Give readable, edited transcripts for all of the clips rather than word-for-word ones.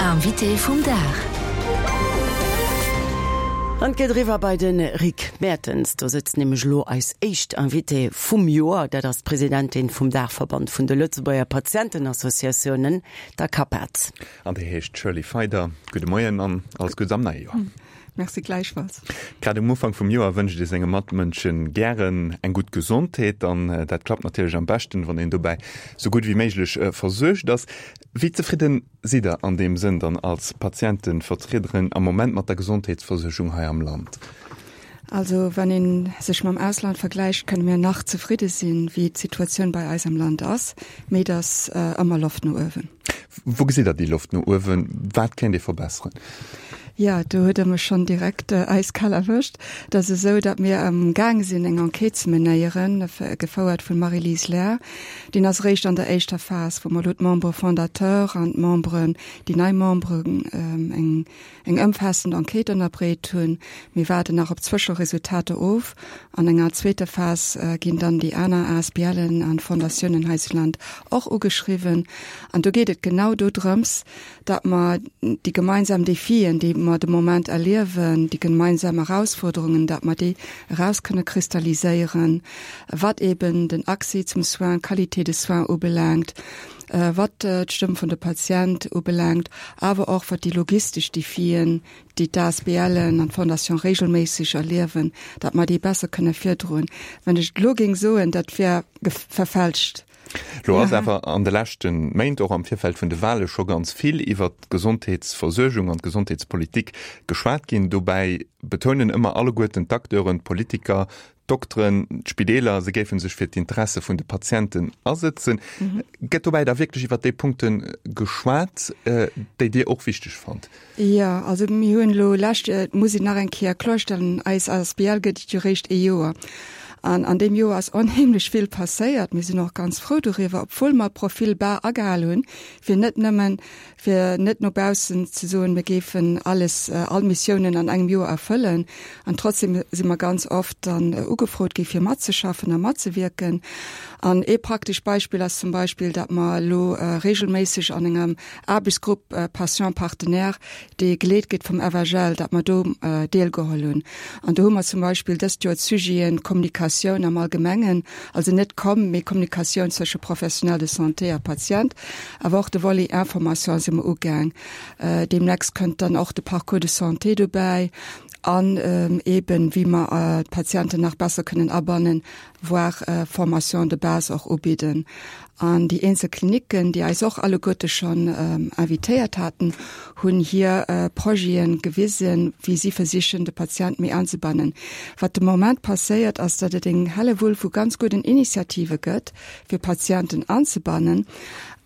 Invité vum Dag. An et geet eriwwer bei de Rick Mertens. Do sëtzt nämlech elo eis éischt Invitée vum Joer. Dat ass d'Presidentin vum Daachverband vun de Lëtzebuerger Patientenassociatiounen, der CAPAD. An déi heescht Shirley Feider. Gudde Moien an alles Guddes am neie Joer. Merci gläichfalls. Grad um Ufank vum Joer wënscht ee senge Matmënsche gären eng gutt Gesondheet an dat klappt natierlech am beschten, wann een dobäi sou gutt wéi méiglech versuergt ass. Wéi zefridden sidd Der an deem Sënn dann als Patientenvertriederin am Moment mat der Gesondheetsversuergung hei am Land? Also wann ee sech mam Ausland vergläicht, kënne mir nach zefridde sinn, wéi d'Situatioun bei eis am Land ass, mee et ass ëmmer Loft no uewen. Wou gesitt Der déi Loft no uewen? Wat kéint ee verbesseren? Jo, do huet Der mech schonn direkt äiskal erwëscht. Et ass esou, datt mir am gaang sinn eng Enquête ze menéieren, gefouert vun Marie-Lise Lair. Deen ass eréischt an der éischter Phas, wou mer elo d'Membres fondateurs an d'Memberen, déi nei Memberen, eng eng ëmfaassend Enquête ënnerbreet hunn. Mir waarden nach op d'Zwëscheresultater of. An enger zweeter Phas ginn dann déi aner ASBLen an Fondatiounen hei zu Land och ugeschriwwen. An do geet et genau dodrëms, datt mer déi gemeinsam Defien, déi mer de Moment erliewen, déi gemeinsam Erausforderungen, datt mer déi eraus kënne kristalliséieren, wat eben den Accès zum Soin, d'Qualité de soins ubelaangt, wat d'Stëmm vun de Patient ubelaangt, awer och wat déi logistesch Defien, déi d'ASBLen an d'Fondation regelméisseg erliewen, datt mer déi besser kënne virdroen. Wann ech et elo géing soen, dat wär verfälscht. Lo ass awer an de leschte Méint, och am Virfeld vun de Wale scho ganz vill iwwert d'Gesondheetsversuergung an d'Gesondheetspolitik geschwat ginn. Dobäi betounen ëmmer alleguerten d'Acteuren, d'Politiker, d'Dokteren, d'Spideeler, se géife sech fir d'Interesse vun de Patienten asëtzen. Gëtt dobäi da wierklech iwwert déi Punkte geschwat, déi Dir och wichteg fannt? Jo, also mir hunn elo lescht, et muss een nach eng Kéier kloerstellen, eis asbl gëtt et jo réischt ee Joer. An an deem Joer ass onheemlech vill passéiert. Mir sinn och ganz frou doriwwer, obwuel mer Profil bas agehal hunn, fir net nëmmen, fir net no baussen ze soen, mir géifen alles, all Missiounen an engem Joer erfëllen. An trotzdem si mer ganz oft dann ugefrot gi fir matzeschaffen a matzewierken. An ee praktescht Beispill ass zum Beispill, datt mer elo regelméisseg an engem Aarbechtsgrupp Patients partenaires, dee geleet gëtt vum FHL, datt mer do deelgeholl hunn. An do hu mer zum Beispill dëst Joer d'Sujeten Kommunikatioun am Allgemengen, also net Com, mee Kommunikatioun zwësche Professionnel de santé a Patient, awer och de Volet Information si mer ugaang. Deemnächst kënnt dann och de Parcours de santé dobäi an eeben, wéi mer d'Patienten nach besser kënnen abannen, voire Formation de base och ubidden. An déi eenzel Klinicken, déi eis och alleguerte schonn invitéiert haten, hunn hir Projete gewisen, wéi si versichen, de Patient méi anzebannen. Wat de Moment passéiert, ass, datt et eng Hellewull vu ganz gudden Initiative gëtt, fir Patienten anzebannen.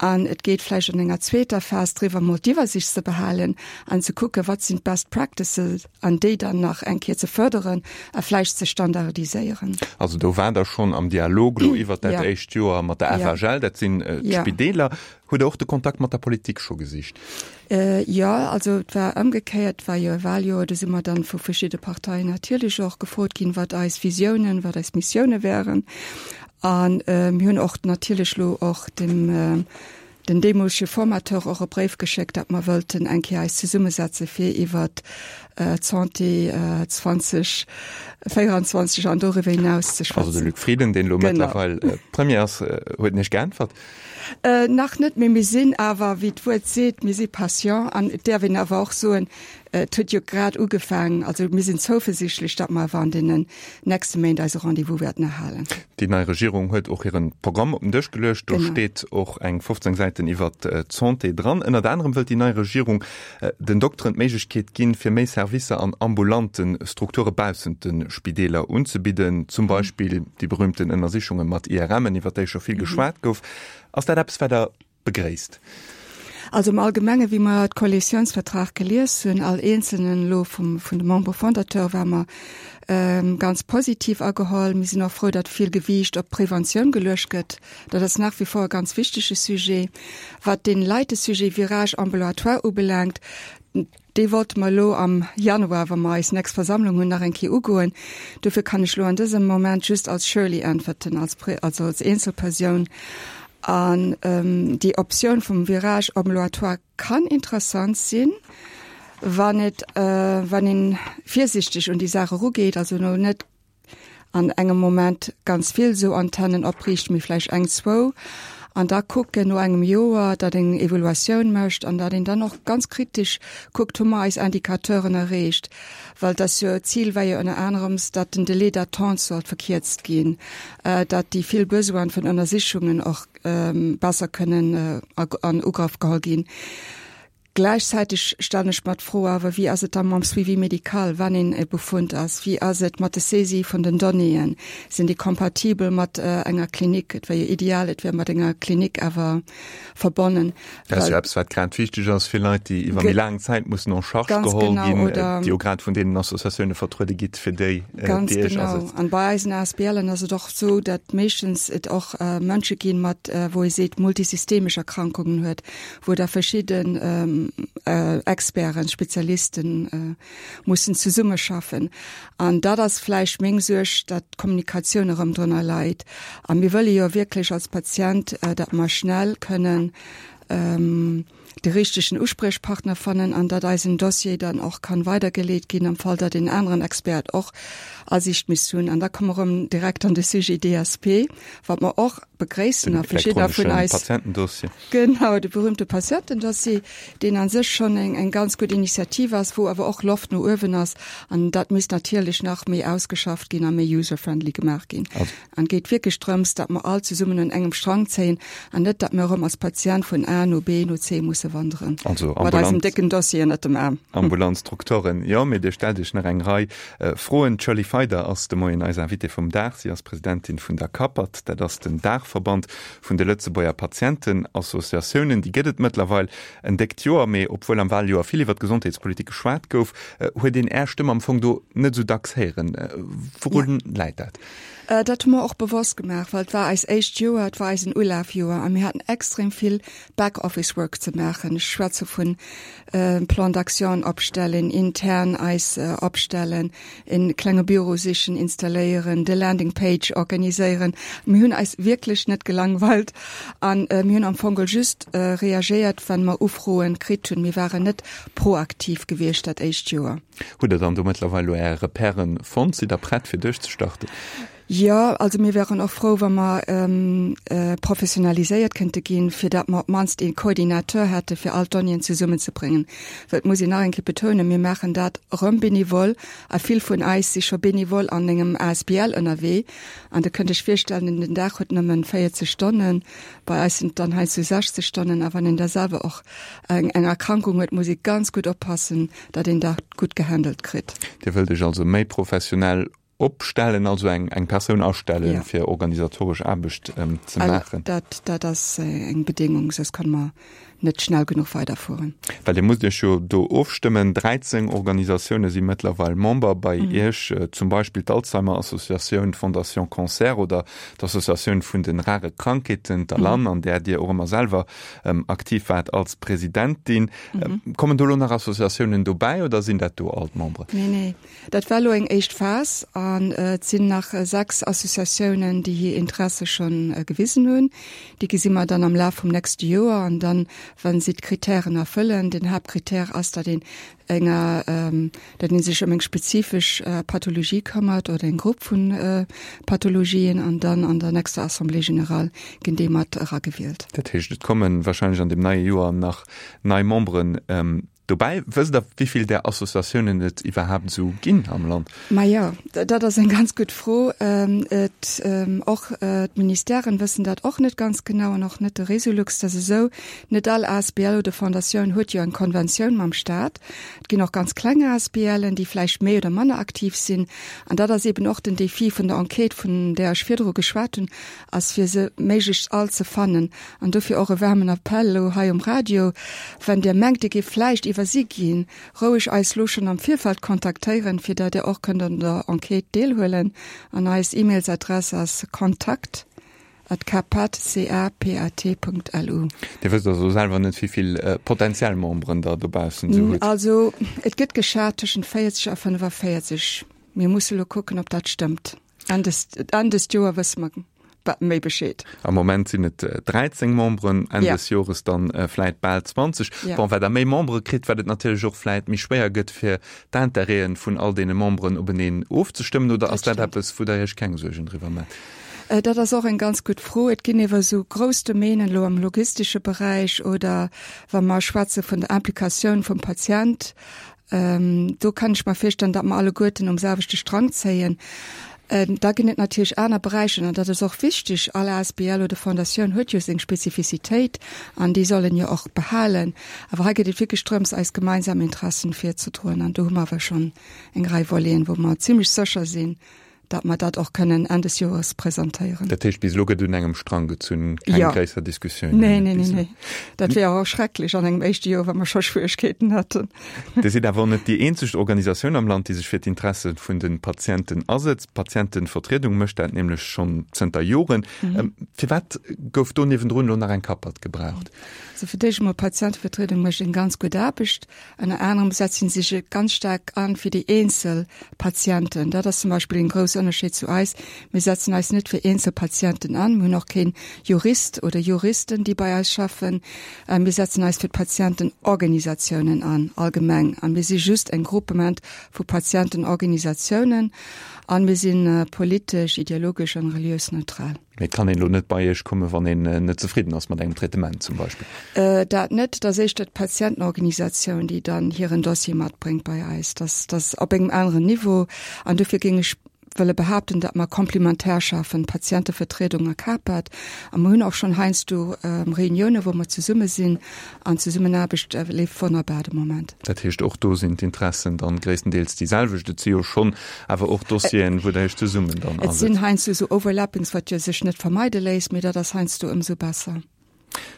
An et geet vläicht an enger zweeter Phas driwwer, mol d'Iwwersicht ze behalen an ze kucken, wat sinn d'Best Practices, an déi dann nach eng Kéier ze fërderen a vläicht ze standardiséieren. Also do waart Der schonn am Dialog elo iwwert dat éischt Joer mat der FHL, dat sinn d'Spideeler. Hutt Der och de Kontakt mat der Politik scho gesicht? Jo, also et war ëmgekéiert, et war jo e Wahljoer, do si mer dann vu verschidde Parteien natierlech och gefrot ginn, wat eis Visiounen, wat eis Missioune wären. A mir hunn och natierlech elo och dem den deemolege Formateur och e Bréif geschéckt, datt mer wëllten eng Kéier eis zesummesetze fir iwwert d'Santé 2024 an doriwwer hinaus ze schwätzen. Also de Luc Frieden, deen elo mëttlerweil Premier ass, huet en Iech geäntwert? Nach net, mee mir sinn awer, wéi d'Wuert seet, mir si patient an et däerf een awer och soen, et huet jo grad ugefaangen. Also mir sinn zouversichtlech, datt mer awer an deenen nächste Méint eise Rendez-vous wäerten erhalen. Déi nei Regierung huet och hiren Programm op den Dësch geluecht. Do steet och eng 15 Säiten iwwert d'Santé dran. Ënnert anerem wëllt déi nei Regierung den Dokteren d'Méiglechkeet ginn, fir méi Servicer an ambulante Strukture baussent de Spideeler unzebidden, zum Beispill déi berühmten Ënnersichunge mat IRMen, iwwert déi scho vill geschwat gouf. Ass dat eppes, wat Der begréisst? Also am Allgemenge wéi mer d'Koalitiounsvertrag gelies hunn, all eenzelnen elo vum vun de Membres fondateurs, war mer ganz positiv ageholl. Mir sinn och frou, datt vill Gewiicht op d'Preventioun geluecht gëtt. Dat ass nach wie vor e ganz wichtege Sujet. Wat dee leite Sujet Virage ambulatoire ubelaangt, dee wollte mer elo am Januar, wa mer eis nächst Versammlung hunn, nach eng Kéier ugoen. Dofir kann ech elo an dësem Moment just als Shirley äntwerten, als, also als Eenzelpersoun. An déi Optioun vum Virage ambulatoire. kann interessant sinn, wann et, wann een virsichteg un déi Saach erugeet, also elo net an engem Moment ganz vill esou Antennen opriicht, mee vläicht eng, zwou, an da kucken no engem Joer, datt een eng Evaluatioun mécht an datt een dann och ganz kritesch kuckt, hu mer eis Indicateuren erreecht, well et ass jo, d'Zil war jo ënner anerems, datt den Délai d'attente sollt verkierzt ginn, datt déi vill Besoine vun Ënnersichungen och besser kënnen an Ugrëff geholl ginn. Gläichzäiteg stellen ech mer d'Fro awer, Wéi ass et da mam Suivi médical, wann een e Befund ass? Wéi ass et mat de Saisie vun den Donnéeën? Sinn déi kompatibel mat enger Klinik? Et wär jo ideal, et wär mat enger Klinik awer verbonnen. Dat ass jo eppes, wat grad wichteg ass fir Leit, déi iwwer méi laang Zäit mussen en charge geholl ginn, déi jo grad vun deenen Associatioune vertruede gitt, fir déi Ganz genau. An bei eisen ASBLen ass et och esou, datt meeschtens et och Mënsche ginn, mat, wou ee seet, multisystemesch Erkrankungen huet, wou da verschidden Experten, Spezialisten mussen zesummeschaffen. An dat ass vläicht meng Suerg, datt d'Kommunikatioun erëm drënner leit. A mir wëlle jo wierklech als Patient, datt mer schnell kënnen de richtegen Uspriechpartner fannen an datt eisen Dossier dann och kann weidergeleet ginn am Fall, datt een aneren Expert och Asiicht misst hunn. An da komme mer erëm direkt an de Sujet DSP, wat mer och begréissen a verschiddener vun eis. Patientendossier. Genau, de berühmte Patientendossier, deen a sech schonn eng, eng ganz gutt Initiativ ass, wou awer och Loft no uewen ass. An dat misst natierlech nach méi ausgeschafft ginn a méi user-friendly gemaach ginn. An et geet wierklech drëms, datt mer all zesummen un engem Strang zéien an net, datt mer erëm als Patient vun A no B no C musse wanderen. Also mat eisem décken Dossier ënnert dem Aarm. Ambulant Strukturen, jo, mee Dir stellt Iech nach eng Rei Froen. D'Shirley Feider ass de Moien eis Invitée vum Dag. Si ass Presidentin vun der CAPAT, dat ass den Daachverband vun de Lëtzebuerger Patientenassociatiounen. Déi gëtt et mëttlerweil en déckt Joer, mee obwuel am Waljoer vill iwwer d'Gesondheetspolitik geschwat gouf, huet een Är Stëmm am Fong do net esou dacks héieren. Wourun läit dat? Dat hu mer och bewosst gemaach, well et war eis éischt Joer, et war eisen Ulafjoer a mir haten extrem vill Back-Office Work ze maachen. Ech schwätze vun Plan d'action opstellen, intern eis opstellen, e klenge Büro sichen, installéieren, de Landing Page organiséieren. Mir hunn eis wierklech net gelangweilt an mir hunn am Fong just reagéiert, wann mer Ufroen kritt hunn. Mir waren net proaktiv gewiescht dat éischt Joer. Hutt Der dann do mëttlerweil elo Är Repèren fonnt? Sidd Der prett fir duerchzestarten? Jo, also mir wären och frou, wa mer professionaliséiert kënnte ginn, fir datt mer op d'mannst ee Coordinateur hätte fir all d'Donnéeën zesummenzebréngen. Well et muss een nach eng Kéier betounen, mir maachen dat erëm bénévol a vill vun eis si scho bénévol an engem asbl ënnerwee. An Der kënnt Iech virstellen, den Dag huet nëmmen 40 Stonnen, bei eis sinn et dann heiansdo 60 Stonnen. A wann een da selwer och eng Erkrankung huet, muss ee ganz gutt oppassen, datt een dat gutt gehandelt kritt. Dir wëllt Iech also méi professionell Opstellen, also eng eng Persoun astellen, ja. fir organisatoresch Aarbecht ähm, ze maachen. Dat, dat ass äh, eng Bedingung, soss kann mer net schnell genuch weiderfueren. Well Dir musst Iech jo do ofstëmmen. 13 Organisatioune si mëttlerweil Member bei mhm. Iech, äh, zum Beispill d'Alzheimer Associatioun, d'Fondation Cancer oder d'Associatioun vun den rare Krankheeten, d'ALAN, mhm. an där Dir och ëmmer selwer ähm, aktiv waart als Presidentin. Mhm. Ähm, kommen do lo nach Associatiounen dobäi oder sinn dat do all d'Memberen? Nee, nee. Dat war elo eng éischt Phas an et sinn nach 6 Associatiounen, déi hir Interesse scho gewisen hunn. Déi gesi mer dann am Laf vum nächste Joer an dann, wa si d'Kritären erfëllen, den Haaptkritär ass, datt een enger, datt ee sech ëm eng spezifesch Pathologie këmmert oder eng Grupp vu Pathologien an dann an der nächster Assemblée générale ginn déi mat eragewielt. Dat heescht, et komme wahrscheinlech an deem neie Joer nach nei Memberen Dobäi, wësst Der, wéi vill där Associatiounen et iwwerhaapt esou ginn am Land? Majo, dat ass eng ganz gutt Fro. Et, och d'Ministèren wëssen dat och net ganz genau an och net de Resolux. Dat ass esou, net all asbl oder Fondatioun huet jo eng Konventioun mam Staat. Et ginn och ganz kleng ASBLen, déi vläicht méi oder manner aktiv sinn. An dat ass eeben och den Défi vun der Enquête, vun där ech virdru geschwat hunn, ass fir se méiglechst all ze fannen. An dofir och e waarmen Appell elo hei um Radio, Wann Dir mengt, Dir géift vläicht iwwersi ginn, roueg eis lo schonn am Virfeld kontaktéieren, fir dat Dir och kënnt an der Enquête deelhuelen. An eis E-Mails-Adress ass kontakt at capat, C-A-P-A-T, Punkt lu. Dir wësst also selwer net, wéi vill potentiell Memberen Der dobaussen esou hutt? Also, et gëtt geschat tëschent 40 a 45. Mir musse lo kucken, ob dat stëmmt. Enn des, Enn des Joer wësse mer. méi Bescheed. Am Moment sinn et 13 Memberen, Enn des Jores dann vläit bal 20. Bon, wat Der méi Membere kritt, wat et natierlech och vläit méi schwéier gëtt, fir d'Intérêten vun all deene Memberen openeen ofzestëmmen. Oder ass dat eppes, wou Der Iech keng Suergen driwwer maacht? Dat ass och eng ganz gutt Fro. Et ginn ewer esou grouss Domänen elo am logistesche Beräich oder wa mer schwätze vun der Implikatioun vum Patient, Do kann ech mer virstellen, datt mer alleguerten um selwechte Strang zéien. Da ginn et natierlech aner Beräicher, an dat ass och wichteg, all asbl oder Fondatioun huet jo seng Spezifizitéit an déi soll en jo och behalen. Awer hei geet et wierklech drëms, eis gemeinsam Interessen virzedroen an do hu mer awer schonn eng Rei Voleten, wou mer zimlech sécher sinn, datt mer dat och kënnen Enn des Joers presentéieren. Dat heescht, bis elo gëtt un engem Strang gezunn, keng jo. gréisser Diskussioun? Nee, nee, nee, nee. Dat wär och schrecklech an engem éischte Joer, wa mer scho Schwieregkeeten hätten. Dir sidd awer och net déi eenzeg Organisatioun am Land, déi sech fir d'Interesse vun de Patienten asetzt. D'Patientevertriedung mécht dat nämlech schonn zënter Joren. Firwat gouf do niewendrun elo nach eng Kappert gebraucht? Also fir d'éischt emol, d'Patientevertriedung mécht eng ganz gutt Aarbecht. Ënner anerem setze si sech ganz staark an fir déi eenzel Patienten. Dat ass zum Beispill een grousse Ënnerscheed zu eis. Mir setzen eis net fir eenzel Patienten an. Mir hunn och keen Jurist oder Juristen, déi bei eis schaffen. Mir setzen eis fir d'Patientenorganisatiounen an, allgemeng. An mir si just en Groupement vu Patientenorganisatiounen. An mir si politesch, ideologesch an reliös neutral. Mee et kann een elo net bei Iech kommen, wann een net zefridden ass mat engem Traitement zum Beispill? Dat net. Et ass éischter d'Patientenorganisatioun, déi dann hiren Dossier matbréngt bei eis. Dat ass op engem aneren Niveau. An dofir géing ech wëlle behaapten, datt mer komplementär schaffen, Patientevertriedung a CAPAD. A mer hunn och schonn heiansdo Reuniounen, wou mer zesumme sinn. An d'Zesummenaarbecht leeft wonnerbar de Moment. Dat heescht, och do sinn d'Interessen dann gréisstendeels déi selwecht. Et si jo schonn awer och Dossieren, wou Der Iech zesummen dann asetzt. Et sinn heiansdo esou Overlappings, wat jo sech net vermeide léisst, mee dat ass heiansdo ëmsou besser.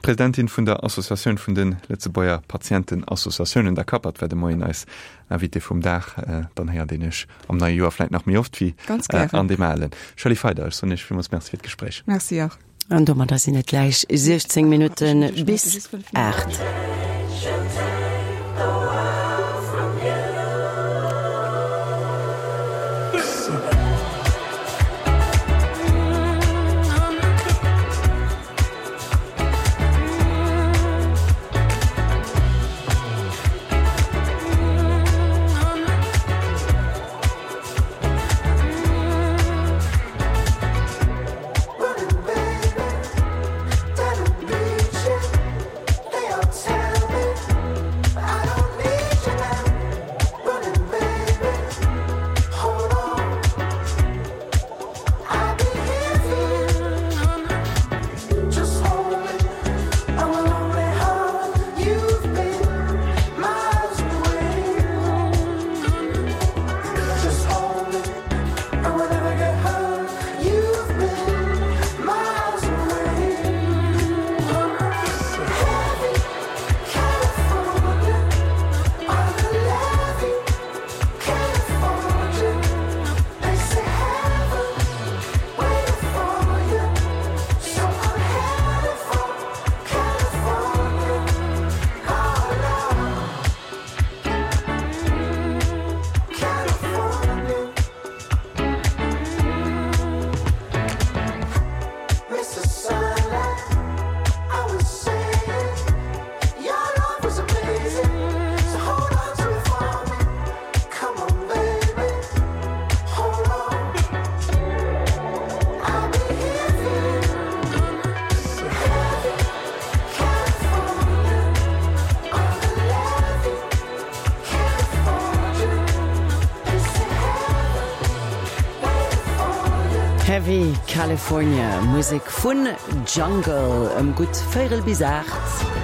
D'Presidentin vun der Associatioun vun de Lëtzebuerger Patientenassociatiounen, der CAPAD, war de Moien eis Invitée vum Dag. Dann héiert een Iech am neie Joer vläit nach méi oft wéi an deem alen. Shirley Feider, ech soen Iech villmools Merci fir d'Gespréich. Merci och. An domadder sinn et gläich 16 Minutte bis 8. Heavy California, Musek vun Jungle ëm gutt véirel bis 8.